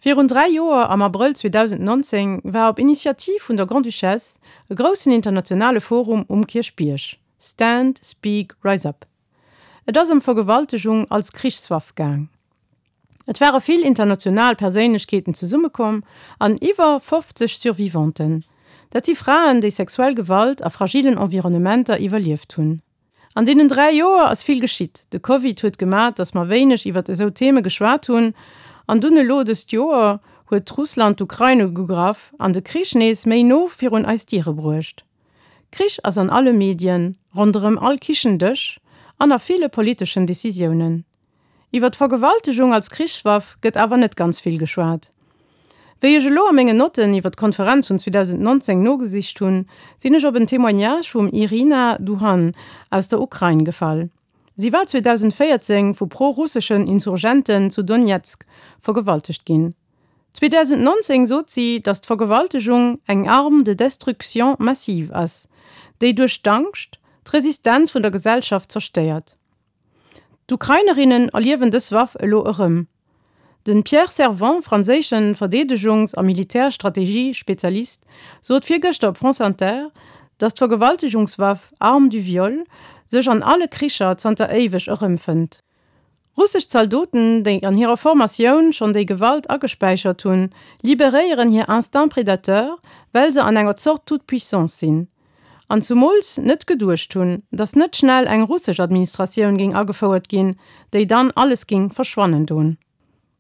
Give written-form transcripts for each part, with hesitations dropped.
Virun 3 Joer, am Abrëll 2019, war op Initiativ vun der Grande-Duchesse e groussen internationale Forum um Kierchbierg, Stand, Speak, Rise Up. Et ass ëm Vergewaltegung als Krichswaff gaang. Et ware vill international Perséinlechkeeten zesummekomm an iwwer 50 Survivanten. Dat si Fraen, déi sexuell Gewalt a fragilen Environnementer iwwerlieft hunn. An deenen 3 Joer ass vill geschitt. De Covid huet gemat, datt mer wéineg iwwert esou Theme geschwat hunn. An dunn elo dëst Joer huet Russland d'Ukrain ugegraff an de Krich nees méi no virun eis Diere bruecht. Krich ass an alle Medien, ronderëm all Kichendësch an a ville politeschen Decisiounen. Iwwer d'Vergewaltegung als Krichswaff gëtt awer net ganz vill geschwat. Wéi ech elo a mengen Notten iwwer d'Konferenz vun 2019 nogesicht hunn, sinn ech op en Témoignage vum Iryna Duhan aus der Ukrain gefall. Si war 2014 vu pro-russeschen Insurgenten zu Donezk vergewaltegt ginn. 2019 sot si, datt d'Vergewaltegung eng Arme de destruction massive ass, déi duerch d'Angscht d'Resistenz vun der Gesellschaft zerstéiert. D'Ukrainerinnen erliewen dës Waff elo erëm. De Pierre Servent, franséische Verdeedegungs a Militärstrategie-Spezialist, sot virgëschter op France Inter, datt d'Vergewaltegungswaff Arme du viol sech an alle Kricher zanter éiweg erëmfënnt. Russesch Zaldoten, déi an hirer Formatioun schonn déi Gewalt agespäichert hunn, liberéieren hir Instinct prédateur, well se an enger Zort Toute-puissance sinn. An zumools net geduecht hunn, datt net schnell eng russesch Administratioun géing agefouert ginn, déi dann alles géing verschwannen don.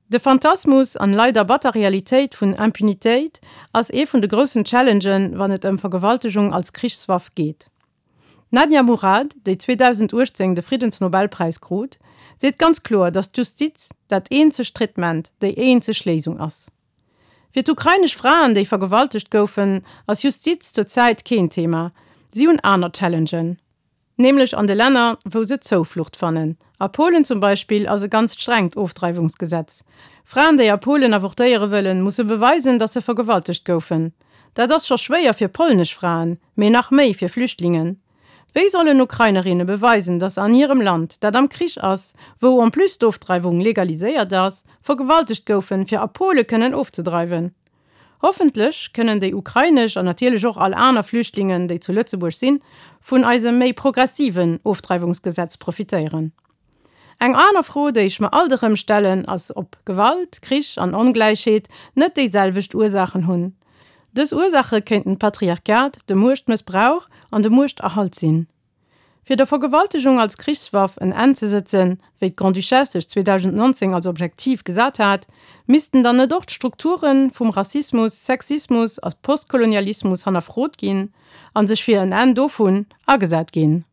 De Phantasmus an leider batter Realitéit vun Impunitéit ass ee vun de groussen Challengen, wann et ëm Vergewaltegung als Krichswaff geet. D'Nadia Murad, déi 2018 de Friddensnobelpräis krut, seet ganz kloer, datt d'Justiz dat eenzegt Traitement, déi eenzeg Léisung ass. Fir d'ukrainesch Fraen, déi vergewaltegt goufen, ass Justiz zur Zäit keen Thema. Si hunn aner Challengen. Nämlech an de Länner, wou se Zouflucht fannen. A Polen zum Beispill ass e ganzt strengt Ofdreiwungsgesetz. Fraen, déi a Polen avortéiere wëllen, musse beweisen, datt se vergewaltegt goufen. Dat ass scho schwéier fir polnesch Fraen, mee nach méi fir Flüchtlingen. Wéi sollen Ukrainerinne beweisen, datt se an hirem Land, dat am Krich ass, wou en plus d'Ofdreiwung legaliséiert ass, vergewaltegt goufen, fir a Pole kënnen ofzedreiwen? Hoffentlech kënnen déi ukrainesch an natierlech och all aner Flüchtlingen, déi zu Lëtzebuerg sinn, vun eisem méi progressiven Ofdreiwungsgesetz profitéieren. Eng aner Fro, déi ech mer alt erëm stellen, ass, ob Gewalt, Krich an Ongläichheet net déi selwecht Ursaachen hunn. Dës Ursaache kéinten d'Patriarcat, de Muechtmëssbrauch an de Muechterhalt sinn. Fir der Vergewaltegung als Krichswaff en Enn ze sëtzen, wéi d'Grande-Duchesse sech 2019 als Objektiv gesat hat, missten dann net och d'Strukture vum Rassismus, Sexismus a Postkolonialismus hannerfrot ginn a sech fir en Enn dovun agesat ginn?